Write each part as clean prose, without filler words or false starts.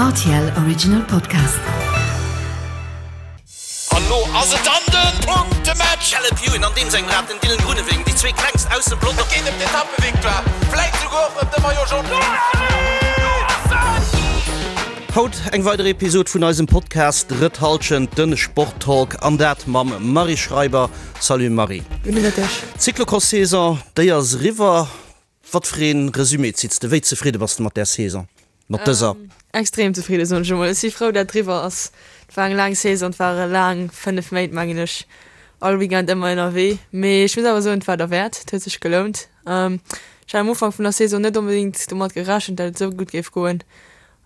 Rtl Original Podcast. An lo ass et dann den Punktematch! Caleb Ewan an deem sengem Rad, den Dylan Groenewegen, déi zwee klengst aus dem Pelotong. Et geet ëm d'Etappevictoire, vläit souguer och ëm de Maillot Jaune. Haut eng weider Episod vun eisem Podcast Drëtt Halschent, den Sporttalk, an dat mam Marie Schreiber. Salut Marie. Gudde Mëtteg. D'Cyclocross-Saison, déi ass eriwwer. Wat fir een Resumé zitts de? Wéi zefridde bass de mat där Saison, mat dëser? Extrem zefridde soen ech emol. Ech si frou dat et eriwwer ass. Et war eng laang Saison, et ware laang 5 Méint mengen ech, all Weekend ëmmer ënnerwee. Mee ech muss awer soen, et war derwäert, et huet sech gelount. Ech hat am Ufank vun der Saison net onbedéngt domat gerechent, dat et esou gutt géif goen.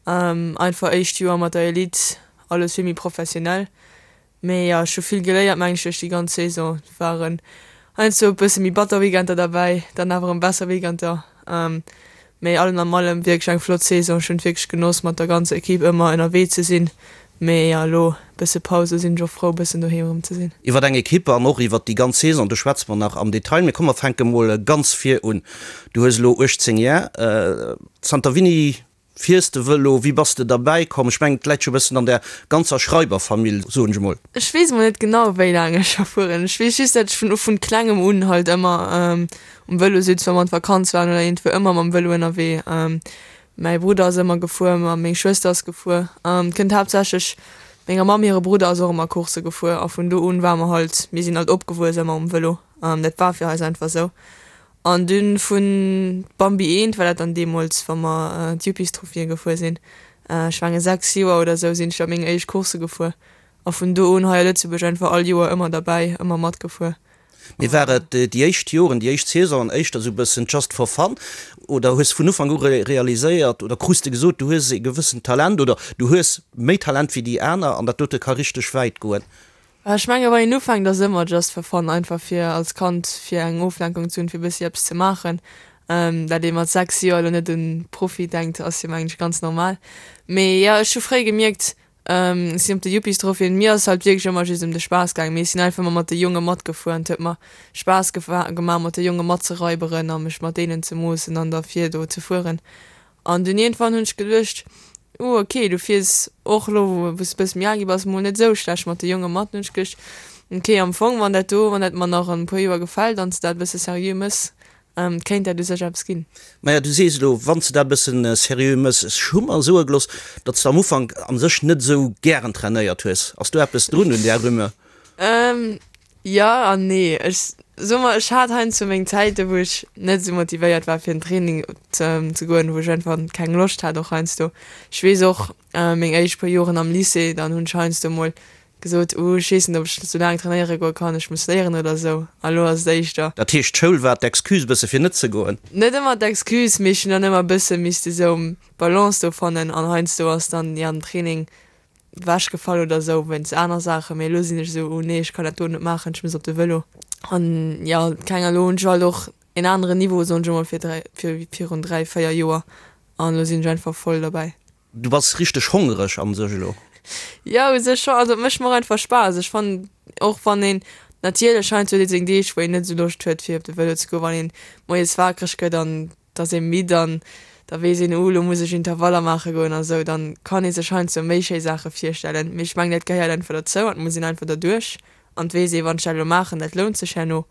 Einfach éischt Joer mat der Elite, alles vill méi professionell. Mee jo, ech hu vill geléiert mengen ech duerch déi ganz Saison. Et waren heiansdo e bësse méi batter Weekender derbäi, dann awer erëm besser Weekender. Mee allem am allem wierklech eng flott Saison. Ech hunn et wierklech genoss mat der ganzer Equipe ëmmer ënnerwee ze sinn. Mee jo, elo e bësse Paus, elo sinn ech och frou e bëssen doheem erëm ze sinn. Iwwer eng Equipe an och iwwer déi ganz Saison, do schwätze mer nach am Detail. Mee komm mer fänke mol ganz vir un. Du hues elo 18 Jar. Zanter wéini Fiers de Vëlo? Wéi bass de derbäi komm? Ech mengen, et läit jo e bëssen an där ganzer Schreiber-Famill, soen ech emol. Ech weess emol net genau, wéi laang ech scho fueren. Ech weess just, dat ech vun vun klengem un halt ëmmer um Vëlo sutz, wa mer an d'Vakanz waren oder iergendwou, ëmmer mam Vëlo ënnerwee. Mäi Brudder ass ëmmer gefuer, ma meng Schwëster ass gefuer. Et kënnt haaptsächlech menger Mamm hire Brudder ass och ëmmer Coursse gefuer a vun do un war mer halt, mir sinn halt opgewuess ëmmer um Vëlo. Dat war fir eis einfach esou. An dunn vun Bambi eent war dat dann deemols, wa mer d'Yuppies-Trophien gefuer sinn. Ech mengen 6 Joer oder sou sinn ech da meng éischt Coursse gefuer. A vun do un hei a Lëtzebuerg einfach all Joer ëmmer derbäi, ëmmer matgefuer. Mee war et déi éischt Joren, déi éischt Saisonen éischter sou bëssen just for fun oder hues de vun Ufank u realiséiert oder krus de gesot, du hues e gewëssent Talent oder du hues méi Talent wéi déi aner an dat dote ka richteg wäit goen? Ech menge wann een ufänkt ass ëmmer just for fun, einfach fir als Kand fir eng Oflenkung ze hunn, fir bëssi eppes ze maachen. Dat ee mat 6 Joer elo net un Profi denkt ass jo mengen ech ganz normal. Mee jo ech hu fréi gemierkt, ech sinn op de Yuppies Tropheen, mir ass halt wierklech ëmmer just ëm de Spaass gaangen, mee ech sinn einfach ëmmer mat de Jonge matgefuer an et huet mer Spaass gemaach mat de Jonge matzeraiberen a mech mat deenen ze moossen an da vir do ze fueren. An dunn iergendwann hunn ech geduecht, Uh, ok, du fiers och elo, wou s de bësse méi al gi bass, mol net esou schlecht mat de Jonge mat. Dunn hunn ech geduecht, ok, am Fong, wann dat do, wann dat mer nach an e puer Joer gefält an s de dat e bësse seriö mëss, kéint dat u sech eppes ginn. Maja, du sees elo, wann s de dat e bëssen seriö mëss. Ech hu mer soe gelooss, datt s de am Ufank a sech net esou gären trainéiert hues. Ass do eppes drun un där Rumeur? Jo an nee. Ech soe mer, ech hat heiansdo meng Zäiten, wou ech net esou motivéiert war fir an Training ze goen, wou ech einfach keng Loscht hat och heiansdo. Ech weess och meng éischt puer Joren am Lycée, dann hunn ech heiansdo mol gesot, uh ech weess net ob ech sou laang trainéiere goe kann, ech muss léieren oder esou. A lo ass et éischter. Dat heescht d'Schoul war d'Excuse bësse fir net ze goen? Net ëmmer d'Excuse, mee ech hunn dann ëmmer bësse misste sou d'Balance do fannen an heiansdo ass dann jo den Training wech gefall oder sou wéinst aner Saachen, mee elo sinn ech sou, oh nee, ech kann dat do net maachen, ech muss op de Vëlo. An jo, keng elo hunn ech halt och en aneren Niveau, soen ech emol, fir 3, fir virun 3, 4 Joer an elo sinn ech einfach voll derbäi. Du bass richteg hongereg an sech elo? Jo, u sech scho, also et mécht mer och einfach Spaass. Ech fannen och wann een, natierlech heiansdo huet ee seng Deeg wou een net sou Loscht huet fir op de Vëlo ze goen, wann een moies wakereg gëtt an da ass ee midd an da weess een, uh, lo muss ech Intervaller maache goen a sou, dann kann ee sech heiansdo méi schéi Saache virstellen. Mee ech mengen, dat gehéiert einfach derzou an et muss een einfach derduerch an et weess ee, wann ech dat elo maachen, dat lount sech herno.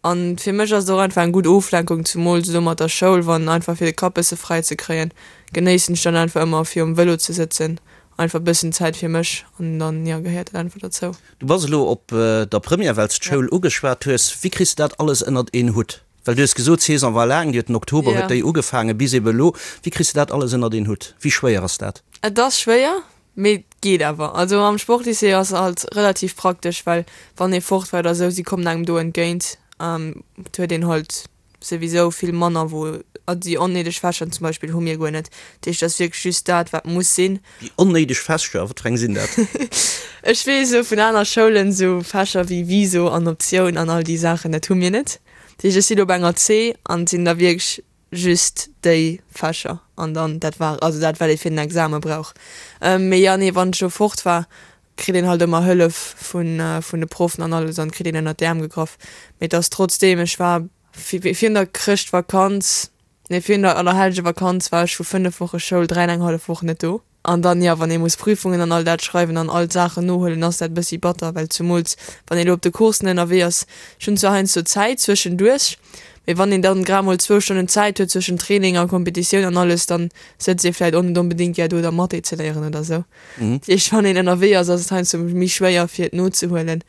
An fir mech ass et och einfach eng gutt Oflenkung, zumools elo mat der Schoul, wann einfach fir de Kapp bësse fräi ze kréien, genéissen ech dann einfach ëmmer fir um Vëlo ze sëtzen, einfach bëssen Zäit fir mech an dann, jo, gehéiert dat einfach derzou. Du bass elo op der Première, well s d'Schoul ugeschwat hues. Wéi kriss de dat alles ënnert een Hutt? Well du hues gesot, d'Saison war laang, déi huet den Oktober huet déi ugefaangen bis ebe elo. Wéi kriss de dat alles ënnert een Hutt? Wéi schwéier ass dat? Et ass schwéier, mee et geet awer. Also am Sportlycée ass halt relativ praktesch, well wann ee fort war oder esou, si kommen engem do entgéint. Et huet een halt souwisou vill manner wou, also déi onnéideg Fächer zum Beispill hu mir guer net. Dat heescht, et ass wierklech just dat, wat muss sinn. Déi onnéideg Fächer, wat fir eng sinn dat? Ech weess esou vun aner Schoulen, esou Fächer wéi Viso an Optioun an all déi Saachen, dat hu mir net. Dat heescht, ech sinn op enger C an et sinn da wierklech just déi Fächer an dann dat war, also dat wat ee fir den Exame brauch. Mee jo, nee, wann ech elo fort war, kritt een halt ëmmer Hëllef vun vun de Proffen an alles an kritt een ënnert d'Äerm gegraff. Mee et ass trotzdeem, ech war virun der Chrëschtvakanz, nee virun der Allerhellgevakanz war ech vu 5 Woche Schoul 3 an eng hallef Woch net do. An dann, jo, wann ee muss Prüfungen an all dat schreiwen an all d'Saachen nohuelen, ass dat e bëssi batter, well zumools wann ee lo op de Coursen ënnerwee ass, ech hunn zwar heiansdo Zäit zwëschenduerch, mee wann een dann grad mol zwou Stonnen Zäit huet zwëschen Training a Competitioun an alles, dann sëtzt ee vläit och net onbedéngt gär do da Mathé ze léieren oder sou. Dat heescht, wann een ënnerwee ass, ass et heiansdo méi schwéier fir et nozehuelen.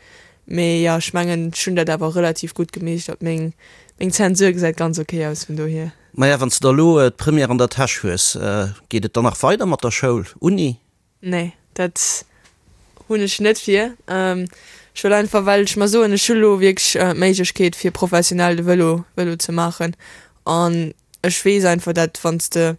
Mee jo, ech mengen, ech hunn dat awer relativ gutt gemeeschtert. Meng meng Zensur gesäit ganz ok aus, vun dohier. Maja, wann s de da elo d'Première an der Täsch hues, geet et dann nach weider mat der Schoul, Uni? Nee, dat hunn ech net vir. Ech wëll einfach, well ech mer soen, ech hu lo wierklech d'Méiglechkeet fir professionell de Vëlo Vëlo ze maachen an ech weess einfach, dat wann s de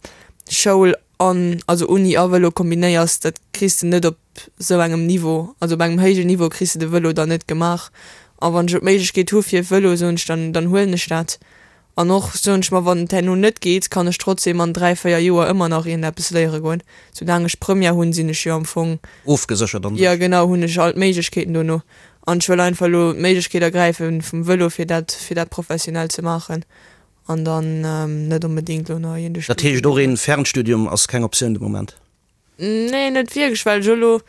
Schoul an, also Uni a Vëlo kombinéiers, dat kriss de net op sou engem Niveau, also op engem héijen Niveau kriss de de Vëlo dann net gemaach. A wann ech lo d'Méiglechkeet hu fir Vëlo, soen ech, dann dann huelen ech dat. An och, soen ech mer, wann et herno net geet, kann ech trotzdem an 3, 4 Joer ëmmer nach iergendeppes léiere goen. Soulaang ech Première hunn, sinn ech jo am Fong. Ofgeséchert an sech. Jo, genau, hunn ech all d'Méiglechkeeten dono. An ech wëll einfach elo d'Méiglechkeet ergräife vum Vëlo, fir dat, fir dat professionell ze maachen. An dann net onbedéngt elo nach iergende Dat heescht, och een Fernstudium ass keng Optioun de Moment? Nee, net wierklech, well ech elo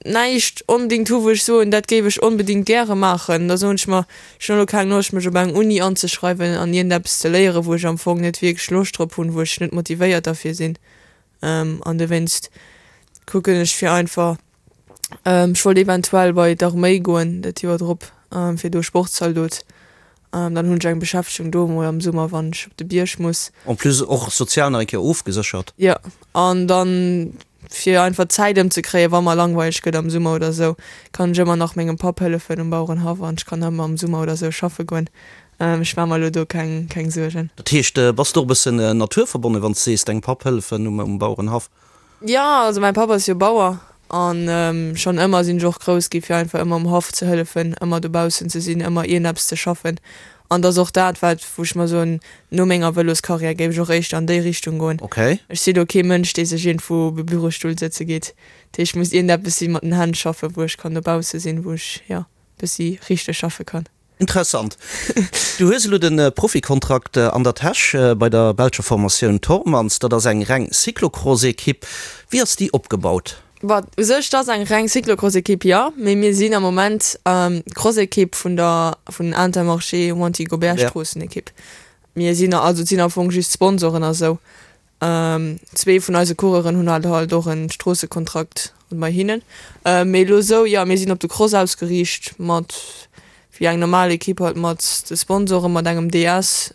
näischt onbedéngt hu wou ech soen, dat géif ech onbedéngt gäre maachen. Da soen ech mer, ech hunn elo keng Loscht mech op eng Uni anzeschreiwen an iergendeppes ze léieren, wou ech am Fong net wierklech Loscht drop hunn, wou ech net motivéiert derfir sinn. An dowéinst kucken ech fir einfach Ech wollt eventuell bei d'Arméi goen dat Joer drop, fir do Sportzaldot. Dann hunn ech eng Beschäftegung do emol am Summer, wann ech op de Bierg muss. En plus och sozial nach eng Kéier ofgeséchert. Jo, an dann fir einfach d'Zäit ëmzekréien, wa mer langweileg gëtt am Summer oder esou, kann ech ëmmer nach mengem Papp hëllefen um Bauerenhaff an ech kann ëmmer am Summer oder esou schaffe goen. Ech maache mer elo do keng keng Suergen. Dat heescht, bass de och e bëssen naturverbonnen, wann s de sees, dengem Papp hëllefen um Bauerenhaff? Jo, also mäin Papp ass jo Bauer an schonn ëmmer sinn ech och grouss gi fir einfach ëmmer um Haff ze hëllefen, ëmmer dobaussen ze sinn, ëmmer iergendeppes ze schaffen. An et ass och dat wat wou ech mer soen, no menger Vëloscarrière géif ech och éischter an déi Richtung goen. Okay. Ech si lo kee Mënsch dee sech iergendwou op e Bürostull sëtze geet. Dat heescht, et muss iergendeppes si mat den Hänn schaffen, wou ech kann dobausse sinn, wou ech jo bëssi richteg schaffe kann. Interessant. Du hues elo de Profikontrakt an der Täsch bei der belscher Formatioun Tormans. Dat ass eng reng Cyclocross-Ekipp. Wéi ass déi opgebaut? Bon, u sech, et ass eng reng Cyclocross-Ekipp, jo, mee mir sinn am Moment d'Cross-Ekipp vun der vun Intermarché Wanty Gobert Stroossenekipp. Mir sinn, also et sinn am Fong just Sponsoren a sou. Zwee vun eise Coureuren hunn halt halt och en Stroossekontrakt bei hinnen. Mee elo esou, jo, mir sinn op de Cross ausgeriicht mat, wéi eng normal Ekipp halt mat de Sponsoren, mat engem DS.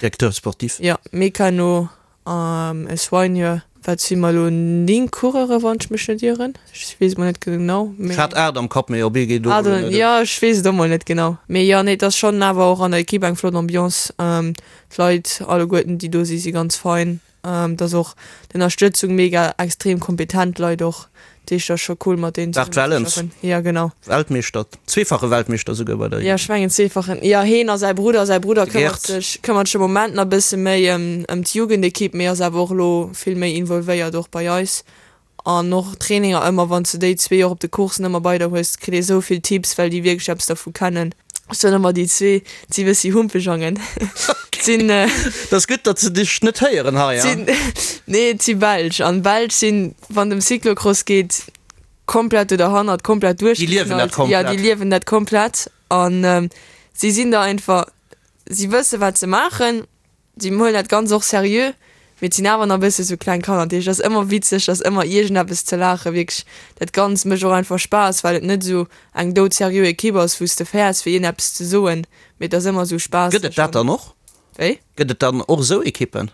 Directeur sportif. Jo, Mécano, e Soigneur. Wat si mer elo? 9 Coureure wann ech mech net ieren. Ech weess et mol net genau. Ech hat 8 am Kapp, mee op ee geet och elo net. Jo, ech weess et och mol net genau. Mee jo, nee, et ass schonn awer och an der Ekipp eng flott Ambiance. D'Leit alleguerten déi do si si ganz fein. Et ass och d'Ënnerstëtzung mega, extrem kompetent Leit och. Dat heescht ass scho cool mat deenen Bart zesummen ze Wellens, schaffen. Jo genau. Weltmeeschter, zweefache Weltmeeschter souguer bei der Jo ech mengen zweefachen, jo heen a säi Brudder. Säi Brudder De këmmert Gerd. sech këmmert sech am Moment nach e bësse méi ëm ëm d'Jugendekipp, mee ass awer och elo vill méi involvéiert och bei eis. An och Traininger ëmmer, wann s de déi zwee och op de Coursen ëmmer bei der hues, kritt ee sou vill Tipps, well déi wierklech eppes dervu kennen. Ech soen ëmmer, déi zwee, et si bëssi Humpejangen. Et sinn. Et ass gutt, datt se dech net héieren hei, hein? Nee, et si Belsch. An Belsch sinn, wann et ëm Cyclocross geet, komplett do derhannert, komplett duerchgeknallt. Déi liewen dat komplett. Jo, déi liewen dat komplett. An si sinn da einfach, si wësse wat se maachen. Si huelen dat Ganzt och seriö, mee et sinn awer nach e bësse sou kleng Kanner. Dat heescht, et ass ëmmer witzeg, et ass ëmmer iergendeppes ze laachen. Wierklech, dat Ganzt mécht och einfach Spaass, well et net esou eng doudseriö Ekipp ass, wou s de fäerts, fir iergendeppes ze soen, mee et ass ëmmer esou spaasseg. Gëtt et dat dann och? Wéi? Gëtt et dann och esou Ekippen?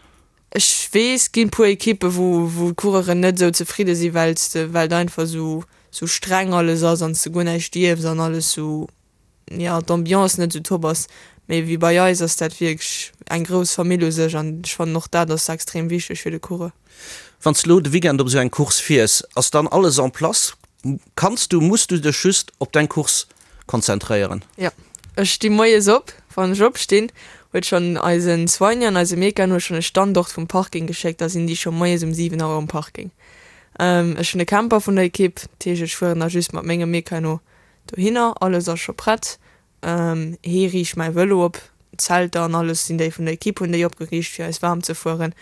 Ech weess, et ginn e puer Ekippen, wou, wou d'Coureuren net esou zefridde sinn, well s de, well et einfach esou, esou streng alles ass an s de guer näischt dierfs an alles esou jo d'Ambiance net esou top ass, mee wéi bei eis ass dat wierklech eng grouss Famill u sech an ech fannen och dat ass extrem wichteg fir de Coureur. Wann s de lo de Weekend op esou eng Course fiers, ass dann alles en place? Kanns du, muss du dech just op deng Course konzentréieren? Jo, ech sti moies op, wann ech opstinn, huet schonn eisen Soigneur an eise Mecan huet schonn e Standort vum Parking geschéckt, da sinn déi scho moies um 7 Auer um Parking. Ech hunn e Camper vun der Ekipp, dat heescht ech fueren da just mat mengem Mecano Dohinner, alles ass scho prett. Hee riicht mäi Vëlo op, d'Zelter an alles sinn déi vun der Ekipp hunn déi opgeriicht fir eis waarm ze fueren.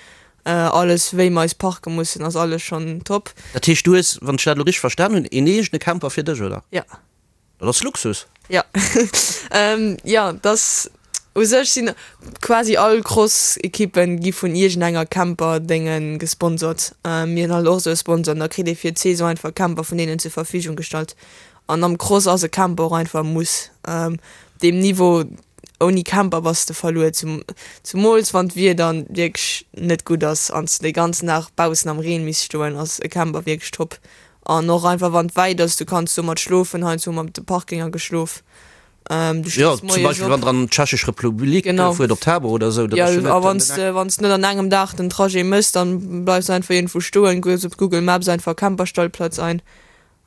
Alles wéi mer eis parke mussen ass alles schonn top. Dat heescht du hues, wann ech dat elo richteg verstan hunn, een eegene Camper fir dech, oder? Ja. Dat ass Luxus. Jo. Jo, dass u sech sinn quasi all Cross-Ekippen gi vun iergendenger Camper-Dénge gesponsort. Mir hunn halt och esou e Sponsor an da kritt ee fir d'Saison einfach Camper vun deenen zur Verfügung gestallt. An am Cross ass e Camper och einfach e Muss. Op deem Niveau, ouni Camper bass de verluer, zumools wann d'Wieder wierklech net gutt ass an s de de ganzen Dag baussen am Reen misst stoen, ass e Camper wierklech top. An och einfach wann et wäit ass, du kanns domat schlofen, heiansdo hu mer op de Parkinger geschlof. Du Jo, stees zum moies Beispill op. wann der an d'Tschechesch Republik Genau. fuert, op Tabor oder esou, dat ass jo Ja, a net wann s de, wann s de net an engem Dag den Trajet méchs, dann bleifs de einfach iergendwou stoen, gëss op Google Maps einfach Camperstellplatz ein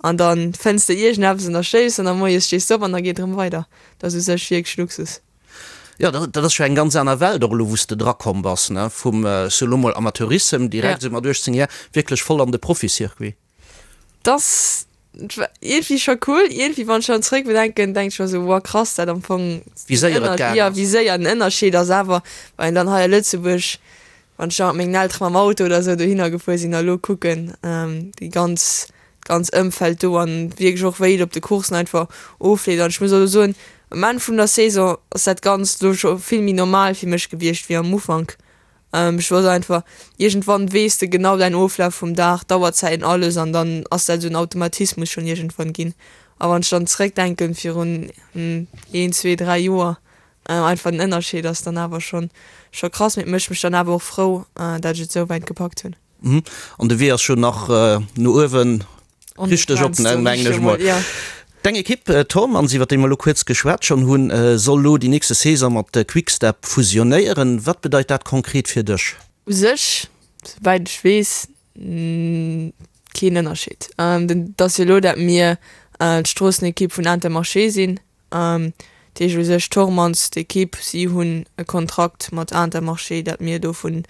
an dann fënns de iergendeppes an da schléifs an da moies stees de op an da geet erëm weider. Dat ass u sech wierklech Luxus. Jo, dat dat ass jo eng ganz aner Welt och elo, wou s de drakomm bass, ne, vum, ech soe lo mol, Amateurissem direkt esou mat 18 Jar wierklech voll an de Profiçircuit. T'ass iergendwéi scho cool, iergendwéi wann ech dran zréck bedenken, denk ech mer esou, wow krass, dat am Fong, Wéi séier et gaang jo, ass. wéi séier den Ënnerscheed ass awer, well een dann hei a Lëtzebuerg, wann ech da mat mengen Eltere mam Auto oder esou dohinner gefuer sinn a lo kucken, déi ganz, d'ganz Ëmfeld do an wierklech och wéi et op de Coursen einfach ofleeft an ech muss och elo soen, um Enn vun der Saison ass dat Ganzt elo scho vill méi normal fir mech gewiescht wéi am Ufank. Ech wosst einfach, iergendwann weess de genau däin Oflaf vum Dag, d'Auerzäiten, alles an dann ass dat esou en Automatismus schonn iergendwann ginn. A wann ech dann zeréckdenken virun een, zwee, dräi Joer, einfach den Ënnerscheed ass dann awer schonn scho krass. Mee et mécht mech dann awer och frou, dat ech et esou wäit gepackt hunn. An de Wee ass jo nach no uewen richteg op, mengen ech mol. Deng Ekipp Thormanns, iwwer déi mer elo kuerz geschwat schonn hunn, soll elo déi nächste Saison mat Quick-Step fusionéieren. Wat bedeit dat konkret fir dech? U sech, souwäit ech weess, keen Ënnerscheed. Et ass jo elo, dat mir d'Stroossenekipp vun Intermarché sinn. Dat heescht u sech Thormanns, d'Ekipp, si hunn e Kontrakt mat Intermarché, dat mir dovun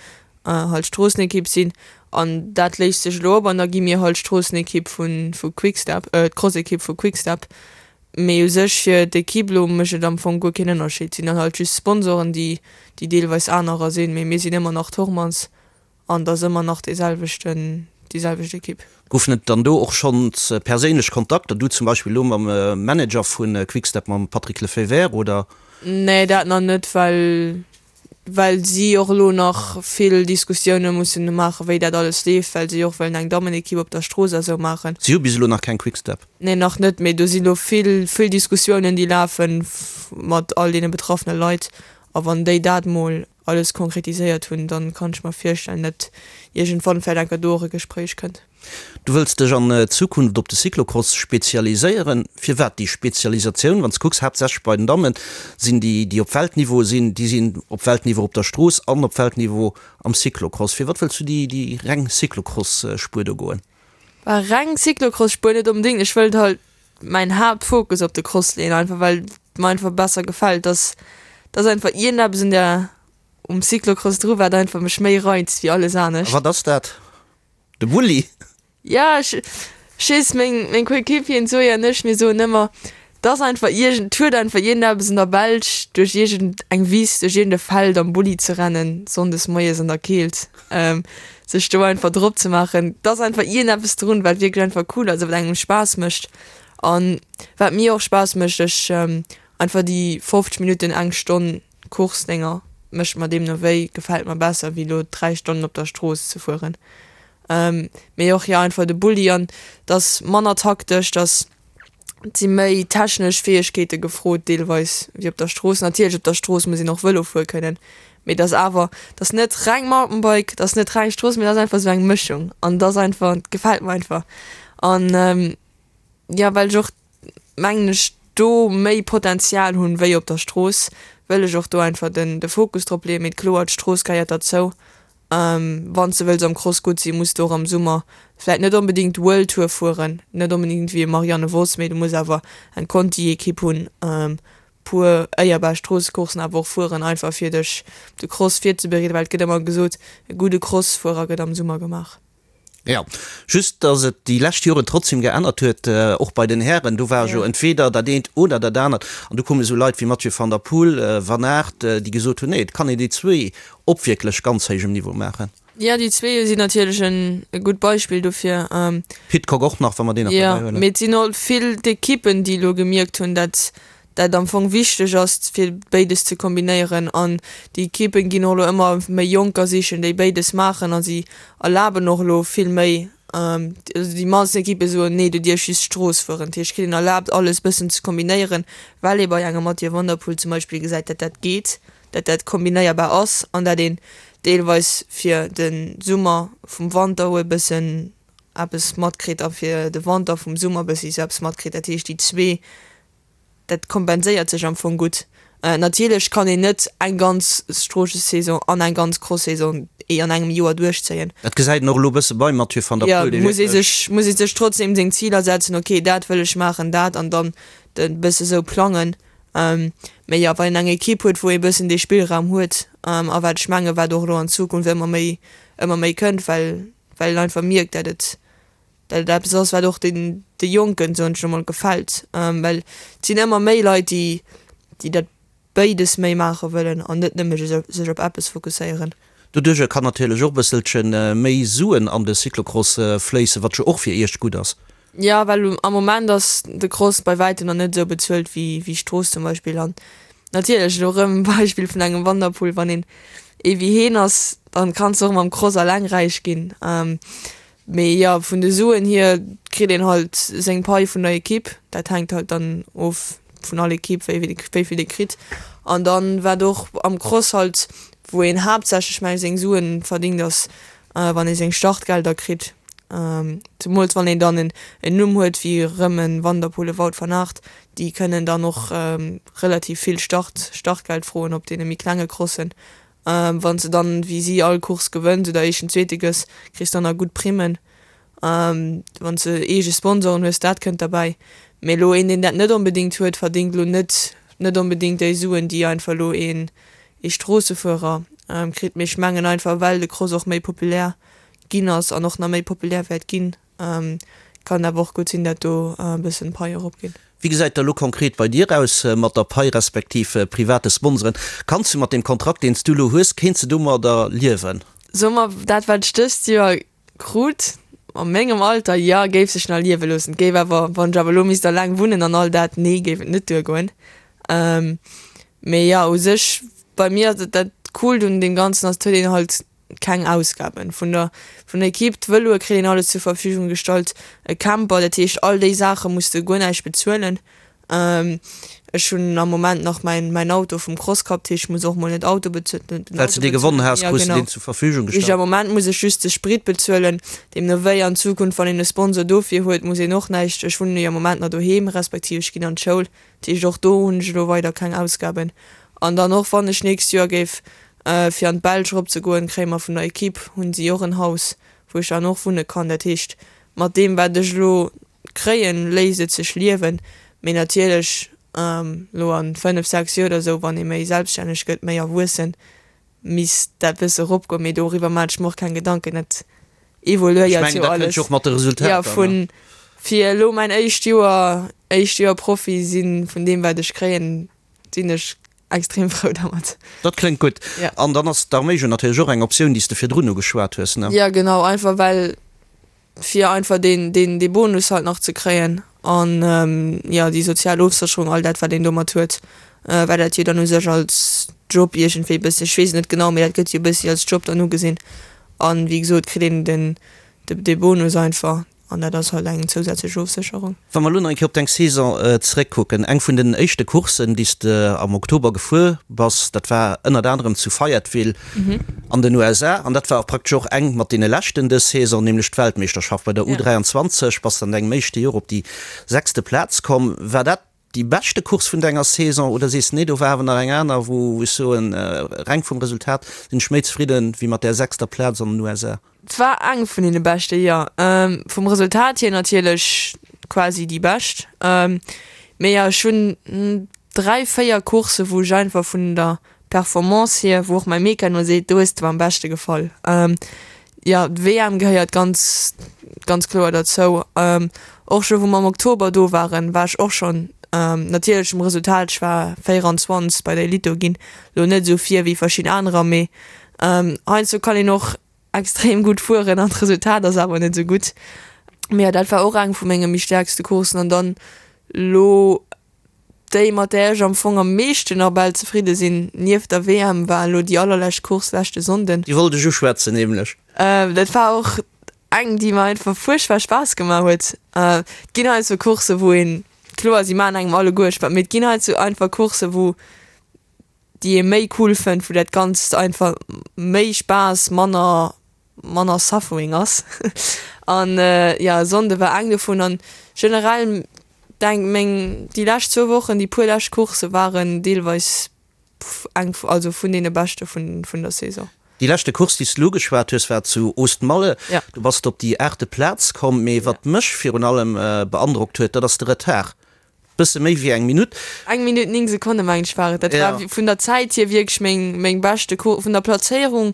halt Stroossenekipp sinn. An dat léist sech elo op an da gi mir halt Stroossenekipp vu vu Quick-Step, d'Crossekipp vu Quick-Step. Mee u sech fir d'Ekipp elo mécht et am Fong guer keen Ënnerscheed. Et sinn dann halt just Sponsoren, déi déi deelweis anerer sinn, mee mir sinn ëmmer nach Thormanns. An et ass ëmmer nach dee selwechten, déi selwecht Ekipp. Goufen et dann do och schonns perséinlech Kontakter, du zum Beispill elo mam Manager vu Quick-Step, mam Patrick Lefevere, oder? Nee, dat nach net, well well si och elo nach vill Diskussioune mussen maachen, wéi dat alles leeft, well si och wëllen eng Dammenekipp op der Strooss a sou maachen. Si hu bis elo nach keng Quick-Step? Nee, nach net, mee do si elo vill, vill Diskussiounen, déi lafen mat all deene betraffene Leit. A wann déi dat mol alles konkretiséiert hunn, dann kann ech mer virstellen, dat iergendwann vläicht enker do och e Gespréich kënnt. Du wëlls dech an Zukunft op de Cyclocross spezialiséieren. Firwat déi Spezialisatioun? Wann s de kucks, haaptsächlech bei den Dammen sinn déi, déi op Weltniveau sinn, déi sinn op Weltniveau op der Strooss an op Weltniveau am Cyclocross. Firwat wëlls du déi, déi reng Cyclocross-Spuer do goen? Bah, reng Cyclocross-Spuer net onbedéngt. Ech wëllt halt mäin Haaptfokus op de Cross leeën, einfach well et mer einfach besser gefält. Dass dass einfach iergendeppes un der um Cyclocross dru wat einfach mech méi reizt wéi alles anescht. A wat ass dat? De Bulli? Ja, ech ech weess, meng meng Coéquipieren d'Zoé an ech, mir soen ëmmer, et ass einfach iergend et huet einfach iergendeppes an der Belsch duerch iergend eng Wiss, duerch iergend e Feld am Bulli ze rennen, sonndes moies an der Keelt. Sech do einfach drop ze maachen, et ass einfach iergendeppes drun, wat wierklech einfach cool ass a wat engem Spaass mécht. An wat mir och Spaass mécht, ech einfach déi 50 Minutten, eng Stonn Course dénger mécht mer deemno wéi, gefält mer besser wéi elo 3 Stonnen op der Strooss ze fueren. Mee och jo einfach de Bulli an et ass manner taktesch, et ass Et si méi technesch Fäegkeete gefrot deelweis wéi op der Strooss. Natierlech op der Strooss muss een och Vëlo fuere kënnen, mee et ass awer, et ass net reng Mountainbike, et ass net reng Strooss, mee et ass einfach esou eng Mëschung an et ass einfach, et gefält mer einfach. An jo, well ech och mengen ech do méi Potenzial hunn wéi op der Strooss, wëll ech och do einfach den de Fokus drop leeën. Mee kloer, d'Strooss gehéiert derzou Wann s de wëlls am Cross gutt sinn, muss de och am Summer vläit net onbedéngt World Tour fueren, net onbedéngt wéi e Marianne Vos, mee du muss awer eng Conti-Ekipp hunn, puer éierbar Stroossecourssen awer och fueren, einfach fir dech op de Cross virzebereeden, well et gëtt ëmmer gesot, e gudde Crossfuerer gëtt am Summer gemaach. Jo, just dass et déi lescht Joren trotzdem geännert huet, och bei den Hären. Do war jo entweder dat eent oder dat anert. An du koume sou Leit wéi Mathieu van der Poel, Van Aert, déi gesot hunn, nee, et kann een déi zwéi op wierklech ganz héijem Niveau maachen. Jo, déi zwee sinn natierlech en e gutt Beispill dofir. Pidcock och nach, wa mer deen nach dobäi huelen. Jo, mee et sinn och vill d'Ekippen, déi elo gemierkt hunn, dat dat am Fong wichteg ass, fir béides ze kombinéieren. An déi Ekippen ginn och elo ëmmer méi Jonker sichen, déi béides maachen a si erlaben och elo vill méi, also déi mannsten Ekippe soen, nee, du dierfs just Strooss fueren. Dat heescht, kritt een erlaabt, alles bëssen ze kombinéieren, well ee bei engem Mathieu van der Poel zum Beispill gesäit, dat dat geet. dat dat kombinéierbar ass an dat een deelweis fir de Summer vum Wanter e bëssen eppes matkritt a fir de Wanter vum Summer e bëssi sou eppes matkritt. Dat heescht déi zwee, dat kompenséiert sech am Fong gutt. Natierlech kann een net eng ganz Stroossessaison an eng ganz Cross-Saison an engem Joer duerchzéien. Dat gesäit een och elo e bësse beim Mathieu van der Poel, dee wierklech. Jo, muss ee sech, muss ee sech trotzdem seng Ziler setzen, okay dat wëll ech maachen, dat an dann e bësse sou plangen. Mee jo, wann een eng Ekipp huet, wou ee bëssen dee Spillraum huet, a wat ech mengen, wat och elo an Zukunft ëmmer méi, ëmmer méi kënnt, well, well een einfach mierkt, dat et, dat et eppes ass, wat och den, de Jonken, soen ech elo mol, gefält. Well et sinn ëmmer méi Leit, déi, déi dat béides méi maache wëllen an net nëmme sech op eppes fokusséieren. Doduerjer kann natierlech och e bësselche méi Suen an de Cyclocross fléissen, wat jo och fir Iech gutt ass. Jo, well am Moment ass de Cross bei wäitem nach net esou bezuelt wéi wéi Strooss zum Beispill. An natierlech, elo erëm e Beispill vun engem Van der Poel, wann een ee wéi heen ass, dann kanns de och mam Cross alleng räich ginn. Mee jo, vun de Suen hier kritt een halt seng Pai vun der Ekipp. Dat hänkt halt dann of vun all Ekipp, wéi wéi vill ee kritt. An dann, wat och am Cross halt, wou een haaptsächlech meng ech seng Suen verdingt, ass wann ee seng Startgelder kritt, zemools wann een dann en Numm huet wéi erëm e Van der Poel, e Wout van Aert, déi kënnen dann och relativ vill Start Startgeld froen op deene méi klenge Crossen. Wann s de dann wéi si all Course gewënns oder éischten, zweete gëss, kriss dann nach gutt Primmen. Wann s de eege Sponsoren hues, dat kënnt derbäi. Mee elo een, deen dat net onbedéngt huet, verdéngt elo net net onbedéngt déi Suen, déi einfach elo een ee Stroossefuerer kritt. Mee ech mengen einfach, well de Cross och méi populär ginn ass an och nach méi populär wäert ginn, kann et awer och gutt sinn, dat do e bëssen d'Pai eropgeet. Wéi gesäit da lo konkret bei dir aus mat der Pai respektiv private Sponsoren? Kanns du mat deem Kontrakt, deen s du lo hues, kéints de domadder liewen? Soe mer, dat wat ech dëst Joer Krut, a mengem Alter, jo, géif sech nach liewe loossen. Et géif awer, wann ech awer elo misst alleng wunnen an all dat, nee, géif et net duergoen. Mee jo, u sech, bei mir ass et, dat Coolt un deem Ganzen ass, et huet een halt keng Ausgaben. Vun der, vun der Equipe, d'Vëloe kritt een alles zur Verfügung gestallt, e Camper, dat heescht all déi Saache muss de guer näischt bezuelen. Ech hunn am Moment nach mäin mäin Auto vum Cross Cup, dat heescht ech muss och mol net Auto bezuelen, den Well s de dee gewonnen has, krus de deen zur Verfügung gestallt. Am Moment muss ech just de Sprit bezuelen, deemno wéi an Zukunft wann een e Sponsor dofir huet, muss een och näischt, ech wunnen jo am Moment nach doheem, respektiv ech ginn an d'Schoul, dat heescht och do hunn ech elo weider keng Ausgaben. An dann och wann ech nächst Joer géif fir an d'Belsch erop ze goen, kréie mer vun der Equipe, hunn si och en Haus wou ech dann och wunne kann, dat heescht mat deem wat ech elo Kréien, léisst et sech liewen, mee natierlech elo an 5, 6 Joer oder sou, wann ee méi selbststänneg gëtt, méi erwuessen, misst dat bësse eropgoen, mee doriwwer maan ech mer och keng Gedanken, dat evoluéiert jo alles. Jo, vun fir elo mäin éischt Joer, éischt Joer Profi sinn, vun deem wat ech kréien, sinn ech extrem frou dermat. Dat kléngt gutt. An dann ass d'Arméi jo natierlech och eng Optioun, déi s de virdrun ugeschwat hues, ne? Jo, genau, einfach well fir einfach deen, deen, dee Bonus halt nach ze kréien an, jo, déi sozial Ofsécherung, all dat, wat een domat huet, well dat jo dann u sech als Job iergendwéi e bëssi, ech weess et net genau, mee dat gëtt jo e bëssi als Job dann ugesinn. An, wéi gesot, kritt een den, dee Bonus einfach an dat ass halt eng zousätzlech Ofsécherung. Wa mer elo nach eng Kéier op deng Saison zeréckkucken, eng vun den éischte Courssen, déi s de am Oktober gefuer bass, dat war ënnert anerem zu Fayetteville an den USA an dat war och praktesch och eng mat deene leschten dës Saison, nämlech d'Weltmeeschterschaft bei der U23. Bass de an dengem éischte Joer op déi sechste Plaz komm. War dat déi beschte Course vun denger Saison oder sees de, nee, do war awer nach eng aner, wou ech soen, reng vum Resultat sinn ech méi zefridden wéi mat där sechster Plaz an den USA? Et war eng vun deene beschte, jo. Vum Resultat hier natierlech quasi déi bescht. Mee jo, ech hunn 3, 4 Coursse wou ech einfach vun der Performance hier, wou och mäi Mekano seet, do hues de mer am beschte gefall. Jo, d'WM gehéiert ganz, ganz kloer derzou. Och scho wou mer am Oktober do waren, war ech och schonn natierlech um Resultat, ech war 24 bei der Elite do ginn, lo net esou vir wéi verschidden anerer, mee heiansdo kann een och. extrem gutt fueren an d'Resultat ass awer net esou gutt. Mee jo, dat war och eng vu menge méi stäerkste Courssen an dann elo déi mat där ech am Fong am meeschten nach bal zefridde sinn, nieft der WM, war elo déi allerlescht Course leschte Sonnden. Déi wollt ech uschwätzen nämlech. Dat war och eng déi mer einfach fuerchtbar Spaass gemaach huet. Et ginn heiansdo Coursse wou een, kloer si maachen engem alleguer Spaass, mee et ginn heiansdo einfach Coursse wou déi ee méi cool fënnt, wou dat Ganzt einfach méi Spaass, manner manner Suffering ass. An jo, e Sonnde war eng dovun an generell denk meng déi lescht zwou Wochen, déi puer lescht Coursse waren deelweis eng also vun deene beschte vun vun der Saison. Déi leschte Course, déi s de elo ugeschwat hues, war zu Oostmalle. Du bass op déi aachte Plaz komm. Mee wat mech virun allem beandrockt huet, dat ass de Retard. Bësse méi wéi eng Minutt. Eng Minutt 9 Sekonne mengen ech war et. Dat war vun der Zäit hier wierklech meng meng beschte Course. Vun der Plazéierung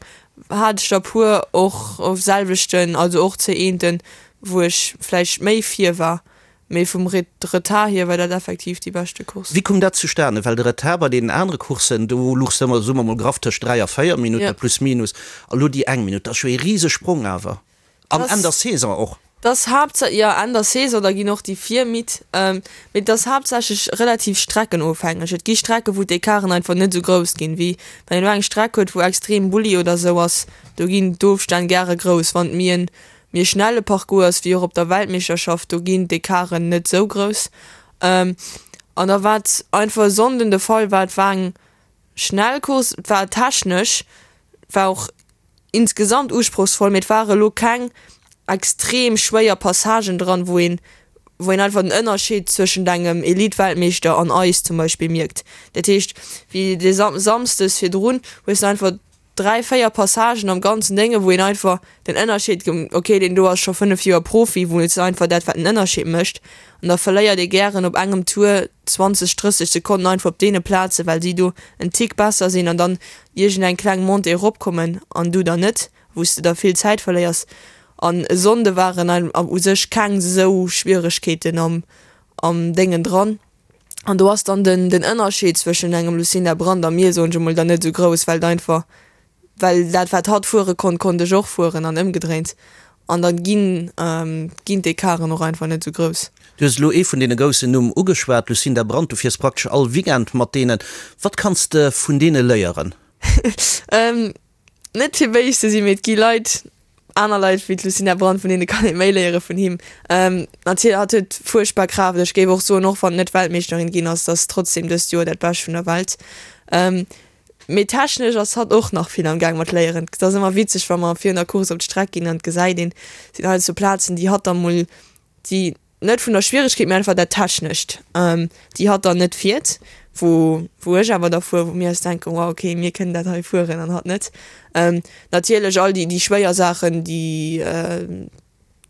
hat ech der puer och op selwechten, also och C1ten, wou ech vläicht méi vir war. Mee vum Retard hier war dat effektiv déi beschte Course. Wéi koum dat zustane? Well de Retard bei deenen anere Courssen, do luchs de ëmmer, soe mer mol graff, tëscht 3 a 4 Minutte plus minus. A lo déi eng Minutt, dat ass jo ee Risesprong awer. An Enn der Saison och. Dass haaptsa jo Enn der Saison, da ginn och déi vir midd. Mee et ass haaptsächlech relativ streckenofhängeg. Et gi Strecke wou d'Ecarten einfach net esou grouss ginn, wéi wann een elo eng Streck huet wou extrem Bulli oder esou ass, do ginn d'Ofstänn gäre grouss. Wann et méi en méi e schnelle Parcours ass, wéi och op der Weltmeeschterschaft, do ginn d'Ecarten net esou grouss. An da wat einfach e Sonnden de Fall war, et war eng schnell Course, et war technesch, war och insgesamt usprochsvoll, mee et ware lo keng extrem schwéier Passagen dran, wou een, wou een einfach den Ënnerscheed zwëschent engem Elite-Weltmeeschter an eis zum Beispill mierkt. Dat heescht, wéi de Sam Samsdes virdrun hues de einfach 3, 4 Passagen am ganzen Dénge wou een einfach den Ënnerscheed, okay deen do ass scho 5 Joer Profi, wou et einfach dat wat den Ënnerscheed mécht an da verléiert ee gären op engem Tour 20, 30 Sekonnen einfach op deene Plazen, well si do en Tick besser sinn an dann iergend eng kleng Montée eropkommen an du dann net, wou s de da vill Zäit verléiers. An e Sonnde waren u sech keng esou Schwieregkeeten am am Déngen dran. An do ass dann den den Ënnerscheed zwëschen engem Lucinda Brand a mir, soen ech emol, dann net esou grouss, well et einfach well dat wat hatt fuere konnt, konnt ech och fueren an ëmgedréint. An dann ginn ginn d'Ecarten och einfach net esou grouss. Du hues elo ee vun deene groussen Numm ugeschwat, Lucinda Brand. Du fiers praktesch all Weekend mat deenen. Wat kanns de vun deene léieren? Net fir béis ze sinn, mee et gi Leit, aner Leit wéi d'Lucinda Brand, vun deene kann ee méi léiere vun him. Natierlech, hatt huet fuerchtbar Kraaft. Ech géif och soen, och wann et net Weltmeeschterin ginn ass, dass trotzdem dëst Joer dat Bescht vun der Welt. Mee technesch ass hatt och nach vill am Gaang mat léieren. Et ass ëmmer witzeg, wa mer virun der Course op d'Streck ginn an et gesäit een, et sinn heiansdo Plazen, déi hatt da mol, déi net vun der Schwieregkeet, mee einfach dat Technescht, déi hatt dann net fiert, wou wou ech awer da fuer, wou mir eis denken, wow, okay, mir kënnen dat hei fueren an hatt net. Natierlech all déi déi schwéier Saachen, déi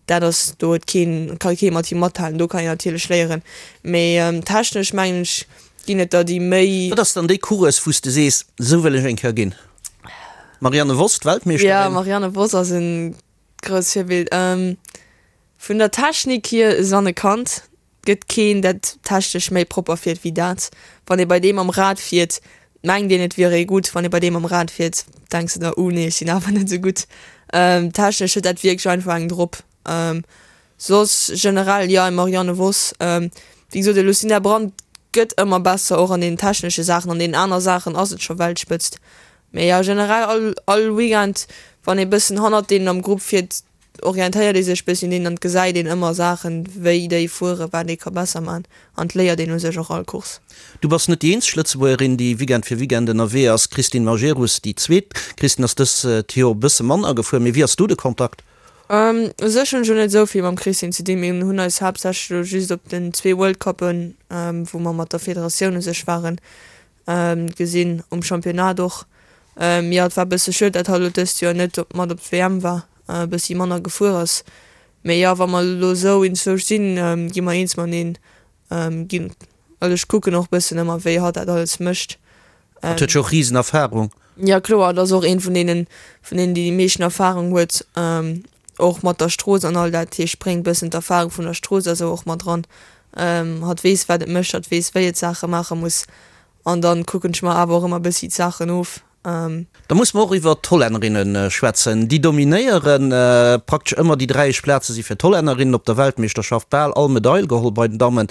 dat ass, do huet keen, ka kee mat him mathalen, do kann een natierlech léieren, mee technesch mengen ech ginn et der déi méi. Wat ass dann déi Course, wou s de sees, esou wëll ech eng Kéier ginn? Marianne Vos, d'Weltmeeschterin? Jo, Marianne Vos ass e grousst Virbild. Vun der Technik hier Sanne Cant, gëtt keen dat technesch méi propper fiert wéi dat. Wann ee bei deem am Rad fiert, mengt een et wier ee gutt, wann ee bei deem am Rad fiert, denks de der, uh nee ech sinn awer net esou gutt. Technesch huet dat wierklech einfach eng drop. Soss generell jo eng Marianne Vos, wéi gesot de Lucinda Brand gëtt ëmmer besser och an den technesche Saachen, an deenen aner Saachen ass et scho Weltspëtzt. Mee jo generell all all Weekend wann ee bëssen hannert deenen am Grupp fiert, orientéiert ee sech bëssi un deenen an et gesäit een ëmmer Saachen, wéi déi fueren, wat ee ka besser man an et léiert een u sech och all Course. Du bass net déi eenzeg Lëtzebuergerin, déi Weekend fir Weekend ënnerwee ass. D'Christine Majerus, déi zweet. D'Christine ass dëst Joer e bësse manner gefuer, mee wéi ass do de Kontakt? U sech hunn ech elo net esou vill mam Christine ze dinn. Mir hunn eis haaptsächlech elo just op den zwee World Cuppen, wou mer mat der Federatioun u sech waren, gesinn, um Championnat och. Jo, et war e bësse schued, dat hatt elo dëst Joer net mat op d'WM war. e bëssi manner gefuer ass. Mee jo, wa mer elo esou inzwousch sinn, gi mer eens mateneen ginn. Also ech kucken och bëssen ëmmer, wéi hatt dat alles mécht. Hatt huet jo och risen Erfahrung. Jo kloer, et ass och een vun deenen, vun deenen, déi déi meeschten Erfahrung huet, och mat der Strooss an all dat. Hie spréngt bëssen d'Erfahrung vun der Strooss a sou och mat dran. Hatt weess, wat et mécht, hatt weess, wéi et Saache maache muss. An dann kucken ech mer awer och ëmmer bëssi d'Saachen of. Da musse mer och iwwert d'Hollännerinne schwätzen. Déi dominéiere praktesch ëmmer déi dräi éischt Plaze si fir d'Hollännerinnen op der Weltmeeschterschaft bal all Medail geholl bei den Dammen.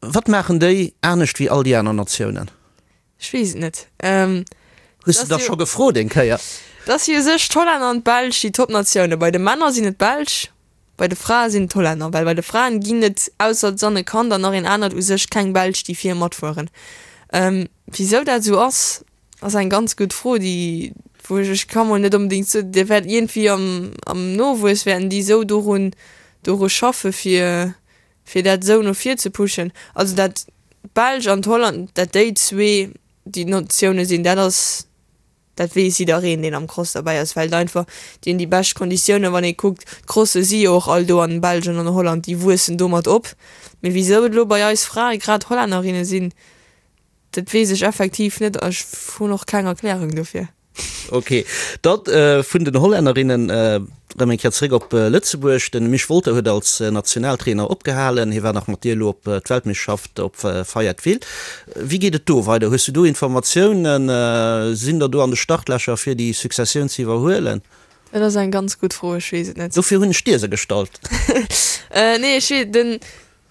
Wat maachen déi anescht wéi all déi aner Natiounen? Ech weess et net. Hues de der scho gefrot eng Kéier? Dat si u sech d'Hollänner an d'Belsch déi Topnatioune. Bei de Männer sinn et d'Belsch, bei de Frae sinn et d'Hollänner. Well bei de Fraen ginn et ausser d'Sanne Kant an nach een anert u sech keng Belsch déi vir matfueren. Wisou dat esou ass, Ass eng ganz gutt Fro, déi wou ech, ech ka mol net onbedéngt soen, déi wäert iergendwéi am am Nowuess wäerten déi esou dorun doru schaffe fir fir dat esou no vir ze pushen. Also dat d'Belsch an d'Holland, dat déi zwee déi Natioune sinn, dat ass dat weess jiddereen deen am Cross derbäi ass, well et einfach déi hunn déi bescht Konditiounen, wann ee kuckt, d'Crosse si jo och all do an Belgien an Holland, déi wuessen domat op. Mee wisou et elo bei eis Frae grad Hollännerinne sinn, Dat weess ech effektiv net a ech hunn och keng Erklärung dofir. Ok, da vun den Hollännerinnen erëm eng Kéier zeréck op Lëtzebuerg. De Misch Wolter huet als Nationaltrainer opgehalen. Hie war nach mat dir elo op d'Weltmeeschterschaft op Fayetteville. Wéi geet et do weider? Hues du do Informatiounen? Sinn der do an de Startlächer fir déi Successioun ze iwwerhuelen? Dat ass eng ganz gutt Fro, ech weess et net. Dofir hunn ech dir se gestallt. Nee, ech weess, den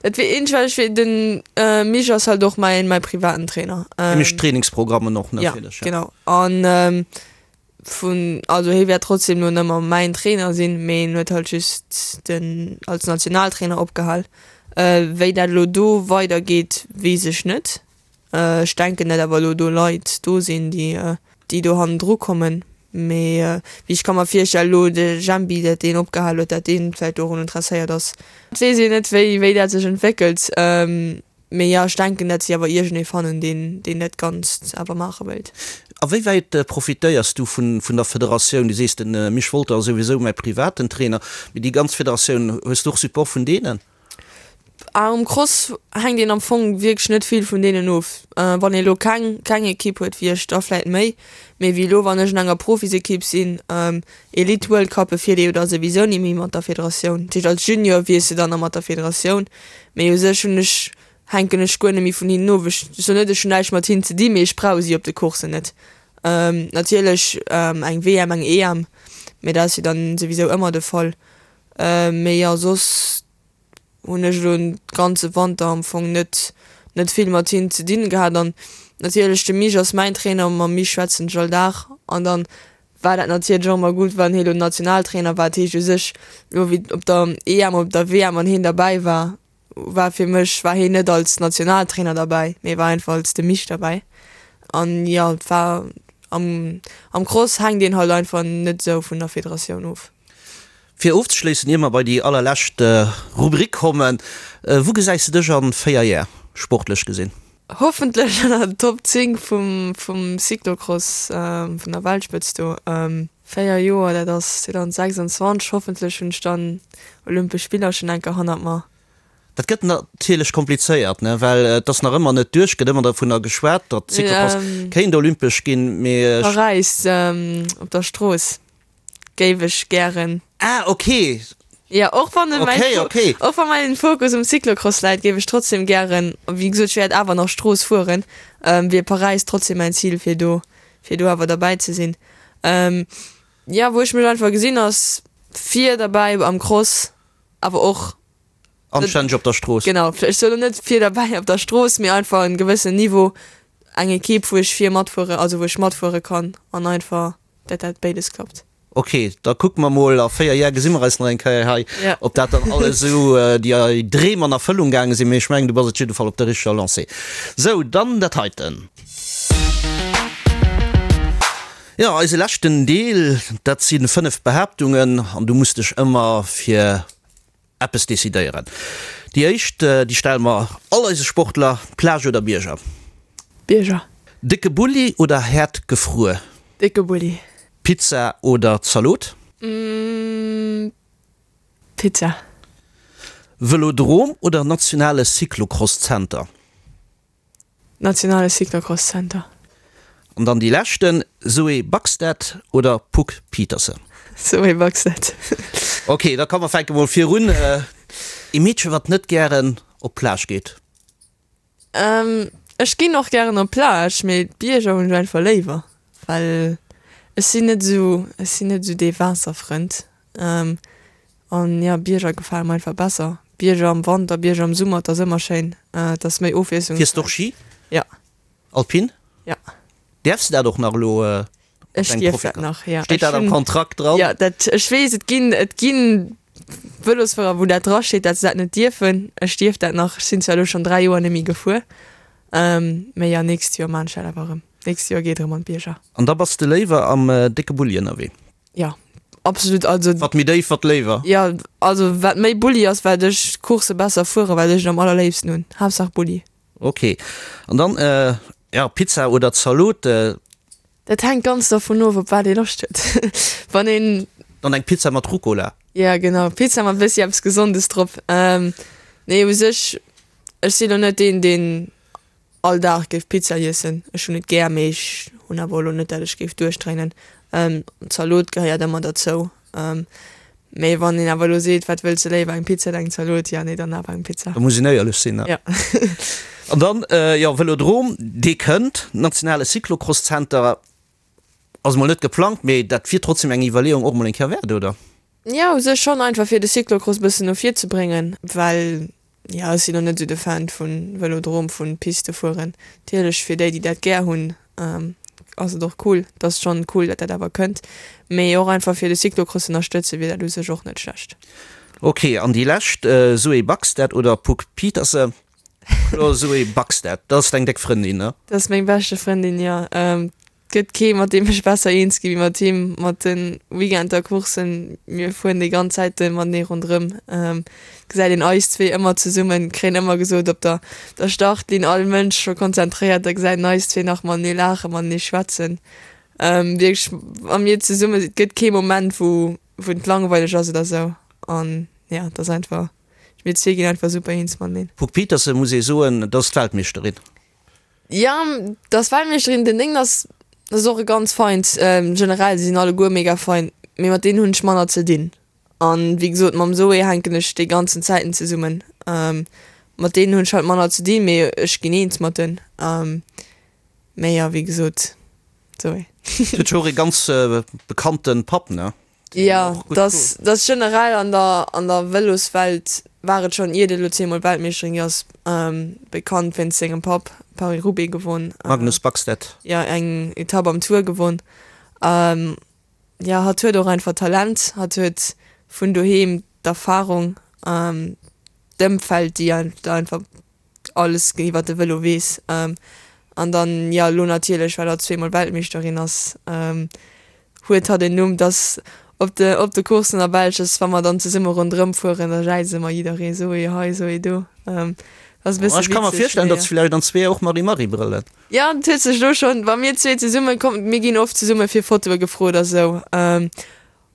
Et wier eench well ech wier den Mich ass halt och mäin mäi privaten Trainer. Hie mécht d'Trainingsprogrammen och natierlech. Ja genau an vun also hie wäert trotzdem lo nëmmer mäin Trainer sinn, mee en huet halt just den als Nationaltrainer opgehal. Wéi dat elo do weider geet weess ech net. Ech denken dat awer elo do Leit do sinn, déi déi do hannendru kommen. Mee wéi ech ka mer virstellen, elo de Jempi, dat deen opgehal huet, dat deen vläicht dorun interesséiert ass. Et weess een net, wéi wéi dat sech entwéckelt. Mee jo, ech denken, dat si awer iergendee fannen, deen deen dat Ganzt awer maache wéilt. A wéi wäit profitéiers du vun vun der Federatioun? Du sees, de Misch Wolter ass souwisou mäi privaten Trainer, mee déi ganz Federatioun, hues du och Support vun deenen? Ah um Cross hänkt een am Fong wierklech net vill vun deenen of. Wann ee lo keng keng Ekipp huet wéi ech, da vläit méi. Mee wéi elo wann ech an enger Profisekipp sinn, Elite World Cuppe fiert ee jo da souwisou ni méi mat der Federatioun. Dat heescht als Junior wiers de dann nach mat der Federatioun, mee u sech hunn ech hänken ech guer net méi vun hinnen of. Ech soen net ech hunn näischt mat hinnen ze di, mee ech brauch si op de Courssen net. Natierlech eng WM, eng EM, mee dat ass jo dann souwisou ëmmer de Fall. Mee jo, soss hunn ech elo den ganze Wanter am Fong net net vill mat hinnen ze dinn gehat. An natierlech de Mich ass mäin Trainer, mam Mich schwätzen ech all Dag. An dann war dat natierlech och ëmmer gutt, wann hie lo Nationaltrainer war. Dat heescht u sech elo wéi op der EM, op der WM, wann hien derbäi war, war fir mech war hien net als Nationaltrainer derbäi, mee war einfach als de Mich derbäi. An jo, et war am am Cross hänkt een halt einfach net esou vun der Federatioun of. Fir ofzeschléissen, ier mer bei déi allerlescht Rubrik kommen, Wou gesäis de dech an 4 Jär, sportlech gesinn? Hoffentlech an der Top 10 vum vum Cyclocross, vun der Weltspëtzt do. 4 Joer, dat ass 2026, hoffentlech hunn ech dann Olympesch Spiller schonn enker hannert mer. Dat gëtt natierlech komplizéiert, ne, well et ass nach ëmmer net duerch, gëtt ëmmer dovunner geschwat, datt Cyclocross kéint olympesch ginn, mee ech. Paräis op der Strooss géif ech gären. Ah, ok. Jo, och wann mäin Okay, okay. och wa mäin Fokus um Cyclocross läit, géif ech trotzdem gären, wéi gesot, ech wäert awer nach Strooss fueren, wier Paräis trotzdem mäin Zil, fir do, fir do awer derbäi ze sinn. Jo, wou ech mech einfach gesinn, ass vir derbäi am Cross, awer och Anstänneg op der Strooss. Genau, ech soen elo net vir derbäi op der Strooss, mee einfach en gewëssen Niveau, eng Equipe wou ech vir matfuere, also wou ech matfuere kann an einfach dat dat béides klappt. Ok, da kucke mer mol, a 4 Jar gesi mer eis nach eng Kéier hei, ob dat dann alles esou déi Dreem an Erfëllung gaange sinn, mee ech mengen du bass op jidde Fall op der richteger Lancée. Sou, dann dat heiten. Jo, eise leschten Deel, dat si 5 Behaaptungen an du muss dech ëmmer fir eppes decidéieren. Déi éischt, déi stelle mer all eise Sportler, Plage oder Bierger? Bierger. Décke Bulli oder haart gefruer? Décke Bulli. Pizza oder Zalot? Pizza. Vëlodrom oder nationale Cyclocross-Zenter? Nationale Cyclocross Center. An dann déi leschten, Zoe Backstedt oder Puck Pieterse? Zoe Backstedt. Ok, da komme mer fänke mol virun. Ee Meedche wat net gären op d'Plage geet? Ech ginn och gären op d'Plage, mee d'Bierger hunn ech einfach léiwer. Well ech sinn net esou, ech sinn net esou dee Waasserfrënd. An jo, Bierger gefale mer einfach besser. Bierger am Wanter, Bierger am Summer, et ass ëmmer schéin. Et ass méi Ofwiesslungsräich. Fiers de och Ski? Ja. Alpin? Ja. Däerfs de dat och nach elo mat Ech dengem dierf dat Profikartett? nach, ja. Steet Ech dat am hunn, Kontrakt dran? jo, dat, ech weess, et ginn, et ginn Vëlosfuerer, wou dat drasteet, dat se dat net dierfen. Ech dierf dat nach. Ech sinn zwar elo schonn 3 Joer net méi gefuer, mee jo, nächst Joer maan ech dat awer erëm. Nächst Joer geet erëm an d'Bierger. An da bass de léiwer am décke Bulli ënnerwee? Jo, absolut. Also. Wat méi déif, wat léiwer? Jo, also wat méi Bulli ass, wat ech d'Coursse besser fueren, wat ech et am allerléifsten hunn. Haaptsaach Bulli. Ok. An dann, jo, Pizza oder Zalot? Dat hänkt ganz dervun of, op wat ee Loscht huet. Wann een. Dann eng Pizza mat Rucola. Jo, genau, Pizza mat bëssi eppes Gesondes drop. Nee, u sech, ech sinn elo net deen, deen all Dag géif Pizza iessen. Ech hunn et gär, mee ech hunn awer elo net, dat ech géif duerchdréinen. Zalot gehéiert ëmmer derzou. Mee wann een awer elo seet, wat wëlls de léiwer, eng Pizza oder eng Zalot, jo nee, dann awer eng Pizza. Da muss een éierlech sinn, ne? Jo. An dann, jo, Vëlodrom, dee kënnt, nationale Cyclocross-Zenter ass emol net geplangt, mee dat wier trotzdem eng Iwwerleeung och emol eng Kéier wäert, oder? Jo, u sech schonn, einfach fir de Cyclocross e bëssen no vir ze bréngen, well Jo, ech sinn och net esou de Fan vun Velodrom, vun Piste fueren. Natierlech fir déi, déi dat gär hunn, ass et och cool. Et ass schonn cool, dat dat awer kënnt. Mee och einfach fir de Cyclocross ënnerstëtzen, wier dat u sech och net schlecht. Ok, an déi lescht, Zoé Backstedt oder Puck Pieterse? Kloer Zoé Backstedt, dat ass deng déck Frëndin, ne? Dat ass meng beschte Frëndin, jo. Gëtt kee mat deem ech besser eens gi wéi mat him, mat de Weekender Courssen, mir fueren déi ganz Zäite matenee ronderëm, gesäit een eis zwee ëmmer zesummen, kréien ëmmer gesot op der der Startlinn all Mënsch scho konzentréiert, da gesäit een eis zwee nach matenee laachen, matenee schwätzen, wierklech wa mir zesumme sinn, et gëtt kee Moment wou wou et langweileg ass oder sou an jo et ass einfach, mir zwee ginn einfach super eens mateneen. Puck Pieterse muss ee soen, dat ass d'Weltmeeschterin. Jo, dass Weltmeeschterin den Déngen ass, ass och e ganz feint. Generell, si sinn alleguer mega fein, mee mat deenen hunn ech manner ze dinn. An wéi gesot, mam Zoé hänken ech déi ganzen Zäiten zesummen. Mat deenen hunn ech halt manner ze dinn, mee ech ginn eens mat en. Mee jo, wéi gesot, Zoé. Huet jo och e ganz bekannte Papp, ne? Jo, dass dass generell an der an der Vëloswelt war et schonn iert et elo zweemol Weltmeeschterin gi ass, bekannt wéinst sengem Papp, Paris-Roubaix gewonn. Magnus Backstedt. Jo, eng Etapp am Tour gewonn. Jo, hatt huet och einfach Talent, hatt huet vun doheem d'Erfarung, d'Ëmfeld, déi einfach alles iwwer de Vëlo weess. An dann, jo, elo natierlech, well hatt zweemol Weltmeeschterin ass, huet hatt en Numm, dass op de, op de Courssen a Belsch ass, wa mer dann zesumme ronderëm fueren, da jäize mer jidderee, Zoé hei, Zoé do. Dat ass e bësse Ech ka mer witzeg, virstellen, mee datt vläicht an zwee och Marie-Marie brëllen. Jo, et huet sech elo schonn, wa mir zwee zesumme kommen, mir ginn oft zesumme fir Fotoe gefrot a sou.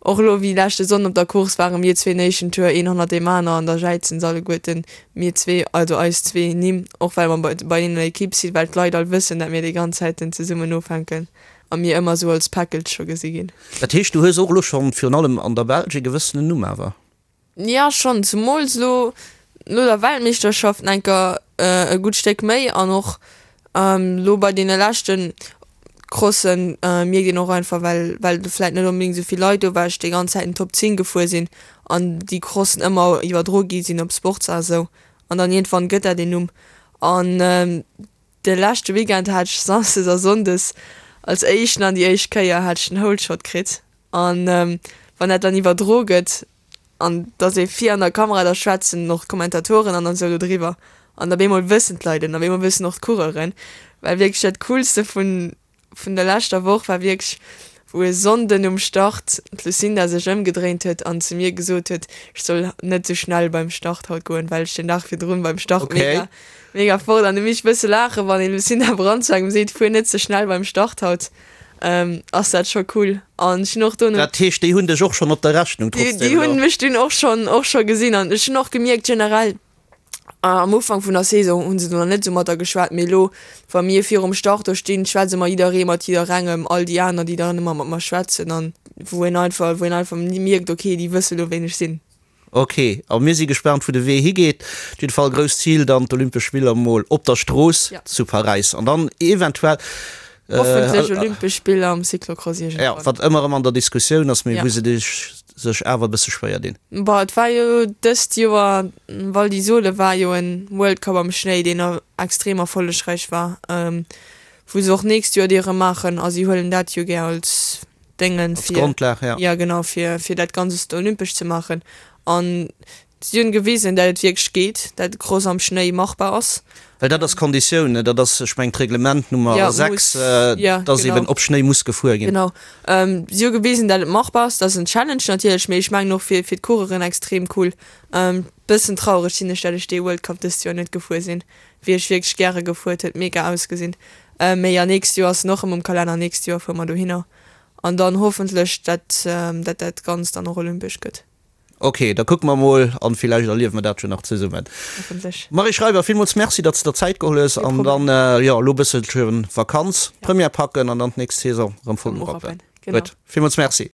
Och elo wéi leschte Sonn op der Course ware mir zwee den éischten Tour een hannert deem aner an da jäizen se alleguerten mir zwee, also eis zwee Nimm, och well mer bei an der Equipe sinn, well d'Leit all wëssen, dat mir déi ganz Zäiten zesummen ofhänken a mir ëmmer esou als Package scho gesi ginn. Dat heescht, du hues och elo schonn virun allem an der Belsch ee gewëssenen Numm awer? Jo schonn, zumools elo no der Weltmeeschterschaft enker e gutt Stéck méi an och elo bei deene leschte Crossen mierkt een och einfach, well well do vläit net onbedéngt esou vill Leit do war, ech déi ganz Zäit en Top 10 gefuer sinn an déi Crossen ëmmer iwwerdro gi sinn op Sportser a sou an dann iergendwann gëtt dat een Numm an de leschte Weekend hat ech Samsdes a Sonndes als éischten an déi éischt Kéier hat ech den Holeshot kritt an wann dat dann iwwerdro gëtt an dass ee vir an der Kamera, da schwätzen och d'Kommentatoren an esou do driwwer an op eemol wëssen d'Leit et an op eemol wëssen och d'Coureuren, well wierklech dat Coolste vun vun der leschter Woch war wierklech, wou e Sonnden um Start d'Lucinda sech ëmgedréint huet an zu mir gesot huet, ech soll net esou schnell beim Start haut goen, well ech den Dag virdrun beim Start mega mega fort an du misst bësse laachen, wann ee Lucinda Brand zu engem seet, fuer net ze schnell beim Start haut. Ass dat scho cool an ech hunn och dono. Dat heescht, déi hunn dech och schonn op der Rechnung trotzdem elo? Déi hunn mech dunn och schonn och scho gesinn an ech hunn och gemierkt generell am Ufank vun der Saison hunn se do nach net esou mat der geschwat, mee elo wa mir virum Start do stinn, schwätze mer jidderee mat jidderengem, all déi aner déi dann ëmmer mat mer schwätzen an wou een einfach wou een einfach mierkt, okay déi wësse lo ween ech sinn. Ok, a mir si gespaant wou de Wee higeet. Op jidde Fall grousst Zil dann d'Olympesch Spiller mol op der Strooss zu Paräis an dann eventuell. Hoffentlech Olympesch Spiller am Cyclocross iergendwann. Jo, wat ëmmer erëm an der Diskussioun ass, mee wou se sech awer e bësse schwéier dinn. Bon, et war jo dëst Joer, Val di Sole war jo en World Cup am Schnéi, deen extrem erfollegräich war, wou se och nächst Joer déi erëm maachen a si huelen dat jo gär als Déngen fir, als Grondlag, ja. Jo, genau, fir fir dat Ganzest olympesch ze maachen. An Si hunn gewisen, dat et wierklech geet, dat Cross am Schnéi machbar ass. Well dat ass d'Konditioun, ne? Dat ass, ech mengen, d'Reglement Nummer 6, dass eben op Schnéi muss gefuer ginn. Genau. Si hu gewisen, dat et machbar ass. Dat ass en Challenge natierlech, mee ech mengen och fir d'Coureuren extrem cool. Bëssen traureg sinn ech, dat ech dee World Cup dëst Joer net gefuer sinn. Wier ech wierklech gäre gefuer, et huet mega ausgesinn. Mee jo, nächst Joer ass en och erëm um Kalenner, nächst Joer fuere mer dohinner an dann hoffentlech, dat dat dat Ganzt dann och olympesch gëtt. Ok, da kucke mer mol an villäicht erliewe mer dat jo nach zesummen. Hoffentlech. Marie Schreiber, villmools Merci, datt s de der Zäit geholl hues an dann, jo, elo e bësselche Vakanz, Première packen an dann d'nächst Saison erëm voll urappen. Gutt, villmools Merci.